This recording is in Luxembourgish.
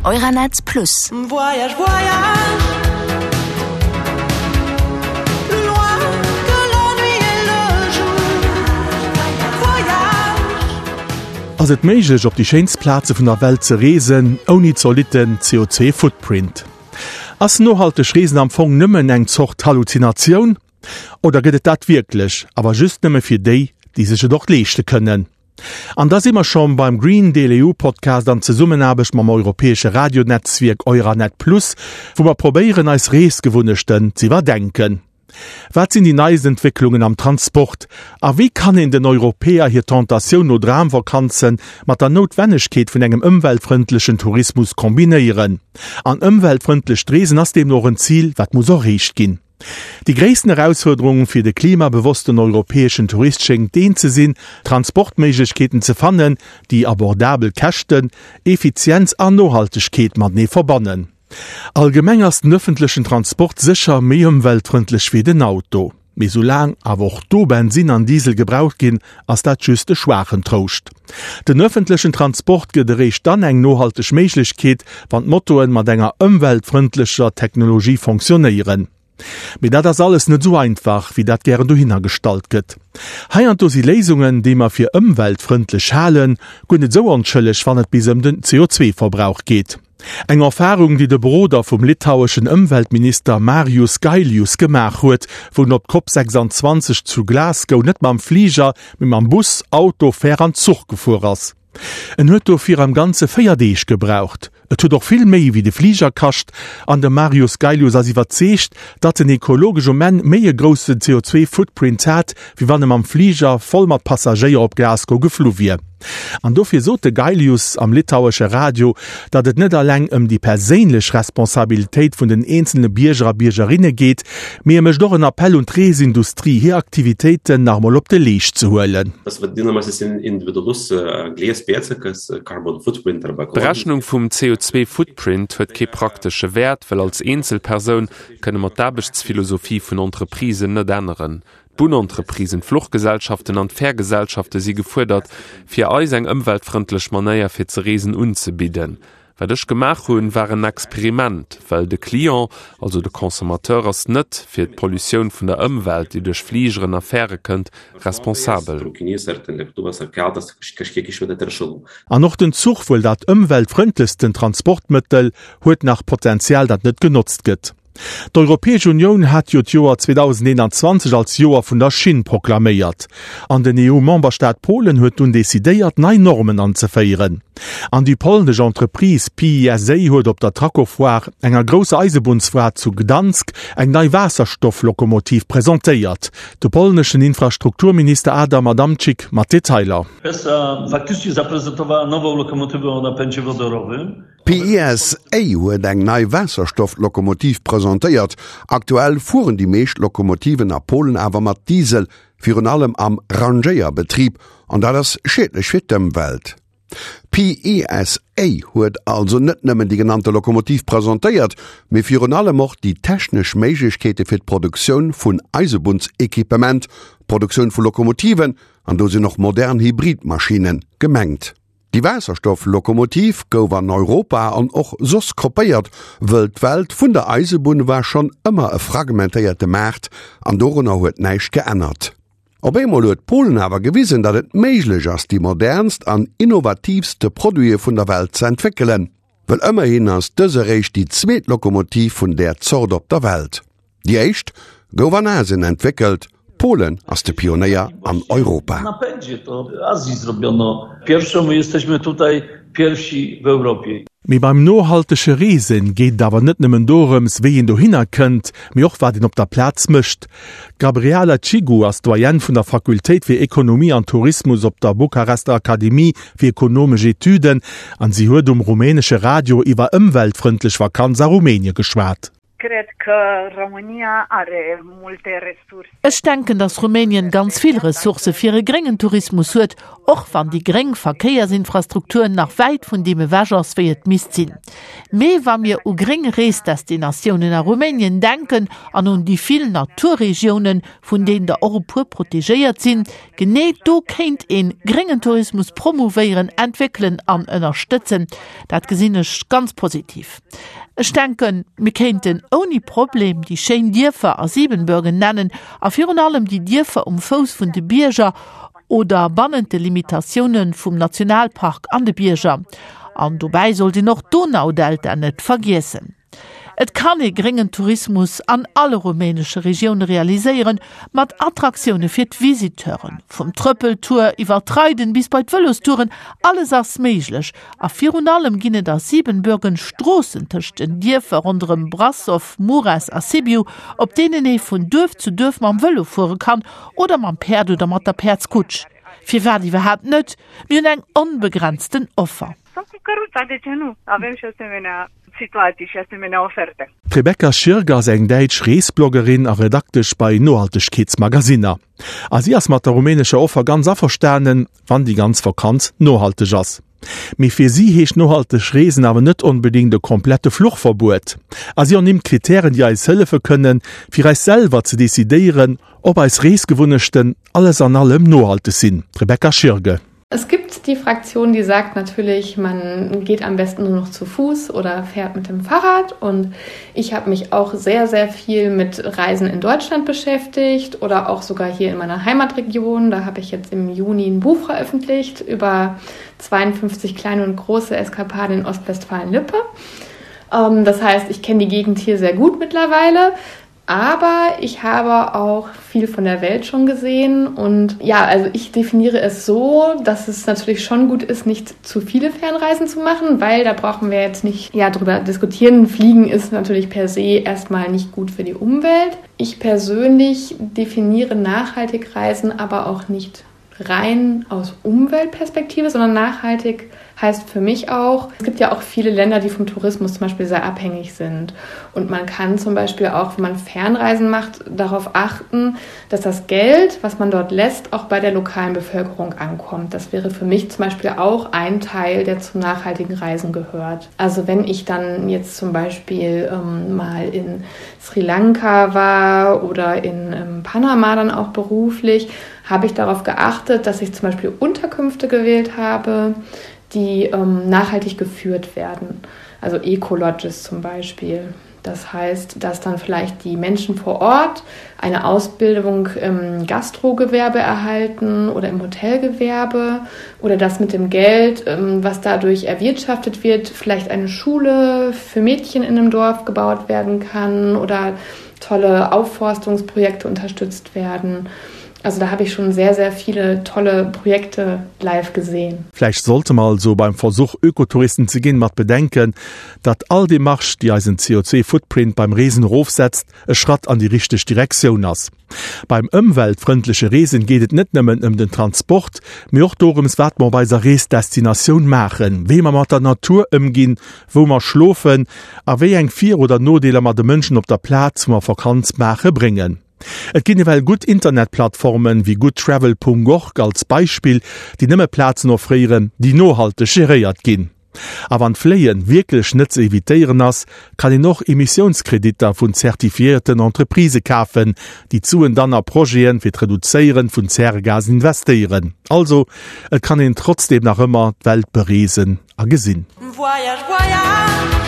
Euranet Plus. Voyage, voyage, loin de l'ennui et le jour. Voyage. Ass et méiglech op déi schéinst Plaze vun der Welt ze reesen ouni zolitten CO2 Footprint? Ass nohalteg Reesen am Fong nëmmen eng Zort Halluzinatioun? Oder gëtt et dat wierklech, awer just nëmme fir déi, déi sech et och leeschte kënnen? An da si mer schonn beim Green Deal EU Podcast an Zesummenaarbecht mam europäesche Radionetzwierk Euranet Plus, wou mer probéieren eis Reesgewunnechten z'iwwerdenken. Wat sinn déi neist Entwécklungen am Transport? A wéi kann een den Europäer hir Tentatioun no Dramvakanze mat der Noutwennegkeet vun engem ëmweltfrëndlechen Tourismus kombinéieren? An ëmweltfrëndlecht Reesen ass deemno och en Zil, wat muss erreecht ginn. Déi gréissten Erausfuerderung fir de klimabewossten europäeschen Tourist schéngt deen ze sinn, Transportméiglechkeeten ze fannen, déi abordabel Käschten, Effizienz an Nohaltegkeet matenee verbannen. Allgemeng ass den ëffentlechen Transport sécher méi ëmweltfrëndlech wéi den Auto. Mee soulaang awer och do Bensinn an Diesel gebraucht ginn, ass dat just e schwaachen Trouscht. Den ëffentlechen Transport gëtt eréischt dann eng nohalteg Méiglechkeet, wann d'Motoen mat enger ëmweltfrëndlecher Technologie fonctionnéieren. Mee dat ass alles net esou einfach, wéi dat gären dohinner gestallt gëtt. Heiansdo si Léisungen, déi mer fir ëmweltfrëndlech halen, guer net esou onschëlleg, wann et bis ëm den CO2-Verbrauch geet. Eng Erfarung, déi de Beroder vum litaueschen Ëmweltminister Marius Gailius gemaach huet, wou en op d'Cop 26 zu Glasgow net mam Fliger, mee mam Bus, Auto, Fär an Zuch gefuer ass. En huet dofir am Ganze 4 Deeg gebraucht. Et huet och vill méi wéi de Fliger kascht an de Marius Gailius ass iwwerzeegt, datt en ekologesch um Enn méi e groussen CO2-Footprint hat, wéi wann e mam Fliger voll mat Passagéier op Glasgow geflu wier. An dofir sot de Gailius am litauesche Radio, datt et net eleng ëm déi perséinlech Responsabilitéit vun den eenzele Bierger a Biergerinne geet, mee e mécht och en Appell un d'Reesindustrie, hir Aktivitéiten nach emol op de Leescht ze huelen. D'Berechnung vum CO2-Footprint huet kee praktesche Wäert, well als Eenzelpersoun kënne mer d'Aarbechtsphilosophie vun Entreprisen net änneren. D'Bunnentreprisen, d'Fluchgesellschaften an d'Fährgesellschafte si gefuerdert, fir eis eng ëmweltfrëndlech Manéier fir ze reesen unzebidden. Wat ech gemaach hunn, war en Experiment, well de Client, also de Consommateur ass net fir d'Pollutioun vun der Ëmwelt, déi duerch Fligeren a Fähre kënnt, responsabel. An och den Zuch, wuel dat ëmweltfrëndlechsten Transportmëttel, huet nach Potenzial, dat net genotzt gëtt. D'Europäesch Unioun hat jo d'Joer 2021 als Joer vun der Schinn proklaméiert. An den EU-Memberstaat Polen huet dunn decidéiert, nei Normen anzeféieren. An déi polnesch Entreprise PISA huet op der Trakofoire, enger grousser Eisebunnsfoire zu Gdansk, eng nei Waasserstofflokomotiv presentéiert. De polneschen Infrastrukturminister Adam Adamczyk mat Detailer. PESA faktycznie zaprezentowała nową lokomotywę o napędzie wodorowym. PISA huet eng nei Waasserstoff-Lokomotiv presentéiert. Aktuell fueren déi meescht Lokomotiven a Polen awer mat Diesel, virun allem am Rangéierbetrib, an dat ass schiedlech fir d'Ëmwelt. PISA huet also net nëmmen déi genannte Lokomotiv presentéiert, mee virun allem och déi technesch Méiglechkeete fir d'Produktioun vun Eisebunnsequipement, d'Produktioun vu Lokomotiven, an do sinn och modern Hybridmaschinne gemengt. Déi Waasserstoff-Lokomotiv gouf an Europa an och soss kopéiert, wëll d'Welt vun der Eisebunn war schonn ëmmer e fragmentéierte Maart an dorunner huet näischt geännert. Op eemol huet Polen awer gewisen, datt et méiglech ass, déi modernst an innovatiivste Produite vun der Welt ze entwéckelen. Wëll ëmmerhin ass dës eréischt déi zweet Lokomotiv vun där Zort op der Welt. Déi éischt gouf an Asien entwéckelt, Polen ass de Pionéier an Europa. Mee beim nohaltege Reesen geet et awer net nëmmen dorëms, wéi een dohinner kënnt, mee och wat een op der Plaz mécht. D'Gabriela Cigu ass Doyenne vun der Fakultéit fir Ekonomie an Tourismus op der Bukarester Akademie fir ekonomesch Etüden an si huet um rumänesche Radio iwwer ëmweltfrëndlech Vakanz a Rumänie geschwat. Cred că România are multe resurse. Ech denken, dass Rumänien ganz vill Ressourcë fir e gréngen Tourismus huet, och wann déi gréng Verkéiersinfrastruktur nach wäit vun deem ewech ass, wéi et misst sinn. Mee wa mir u gréng Reesdestinatiounen a Rumänien denken an un déi vill Naturregiounen, vun deenen der och e puer protegéiert sinn, genee do kéint ee gréngen Tourismus promouvéieren, entwéckelen an ënnerstëtzen. Dat gesinn ech ganz positiv. Ech denken, mir kéinten ouni Problem déi schéin Dierfer a Siebenbürgen nennen a virun allem déi Dierfer um Fouss vun de Bierger oder bannent de Limitatiounen vum Nationalpark an de Bierger. An dobäi sollt een och d'Donaudelta net vergiessen. Et kann ee gréngen Tourismus an alle rumänesche Regioune realiséieren, mat Attraktioune fir d'Visiteuren. Vum Trëppeltour iwwer d'Reiden bis bei d'Vëlostouren, alles ass méiglech. A virun allem ginn et a Siebenbürgen Stroossen tëscht den Dierfer ronderëm Brasov, Mures a Sibiu, op deenen ee vun Duerf zu Duerf mam Vëlo fuere kann oder mam Päerd oder mat der Päerdskutsch. Firwat iwwerhaapt net? Mir hunn eng onbegrenzten Offer. Sau cu căruța, de ce nu? Avem și asemenea situații și asemenea oferte. D'Rebecca Schirger ass eng däitsch Reesbloggerin a Redaktesch bei Nohaltegkeetsmagasinner. A si ass mat der rumänescher Offer ganz averstanen, wann déi ganz Vakanz nohalteg ass. Mee fir si heescht nohalteg Reesen awer net onbedéngt e komplette Fluchverbuet. A si ernimmt Kritären, déi eis hëllefe kënnen, fir eis selwer ze decidéieren, ob eis Reesgewunnechten alles an allem nohalteg sinn. D'Rebecca Schirge. Es gibt die Fraktion, die sagt natürlich, man geht am besten nur noch zu Fuß oder fährt mit dem Fahrrad. Und ich habe mich auch sehr, sehr viel mit Reisen in Deutschland beschäftigt oder auch sogar hier in meiner Heimatregion. Da habe ich jetzt im Juni ein Buch veröffentlicht über 52 kleine und große Eskapaden in Ostwestfalen-Lippe. Ähm, das heißt, ich kenne die Gegend hier sehr gut mittlerweile. Aber ich habe auch viel von der Welt schon gesehen und ja, also ich definiere es so, dass es natürlich schon gut ist, nicht zu viele Fernreisen zu machen, weil da brauchen wir jetzt nicht ja, drüber diskutieren. Fliegen ist natürlich per se erstmal nicht gut für die Umwelt. Ich persönlich definiere nachhaltig Reisen aber auch nicht rein aus Umweltperspektive, sondern nachhaltig heißt für mich auch, es gibt ja auch viele Länder, die vom Tourismus zum Beispiel sehr abhängig sind. Und man kann zum Beispiel auch, wenn man Fernreisen macht, darauf achten, dass das Geld, was man dort lässt, auch bei der lokalen Bevölkerung ankommt. Das wäre für mich zum Beispiel auch ein Teil, der zum nachhaltigen Reisen gehört. Also wenn ich dann jetzt zum Beispiel ähm, mal in Sri Lanka war oder in ähm, Panama dann auch beruflich, habe ich darauf geachtet, dass ich zum Beispiel Unterkünfte gewählt habe, die ähm, nachhaltig geführt werden. Also Ecolodges zum Beispiel. Das heißt, dass dann vielleicht die Menschen vor Ort eine Ausbildung im Gastrogewerbe erhalten oder im Hotelgewerbe oder dass mit dem Geld, ähm, was dadurch erwirtschaftet wird, vielleicht eine Schule für Mädchen in einem Dorf gebaut werden kann oder tolle Aufforstungsprojekte unterstützt werden. Also da habe ich schon sehr, sehr viele tolle Projekte live gesehen. Vläicht sollte mer also beim Versuch Ökotouristen ze ginn mat bedenken, datt all Demarche déi eisen CO2 Footprint beim Reesen erofsetzt e Schratt an déi richteg Direktioun ass. Beim ëmweltfrëndleche Reesen geet et net nëmmen ëm den Transport, mee och dorëms wat mer op eiser Reesdestinatioun maachen, wéi mer mat der Natur ëmginn, wou mer schlofen a wéi eng Vir oder Nodeeler mer de Mënschen op der Plaz wou mer Vakanz maache bréngen. Et ginn ewell gutt Internetplattformen, wéi goodtravel.org als Beispill, déi nëmme Plazen offréieren, déi nohalteg geréiert ginn. A wann d'Fléien wierklech net ze evitéieren ass, kann een och Emissiounskreditter vun zertifiéierten Entreprisë kafen, déi d'Suen dann a Projeten fir d'Reduzéieren vun Zäregasen investéieren. Also, et kann een trotzdeem nach ëmmer d'Welt bereesen a gesinn. Voyage, voyage.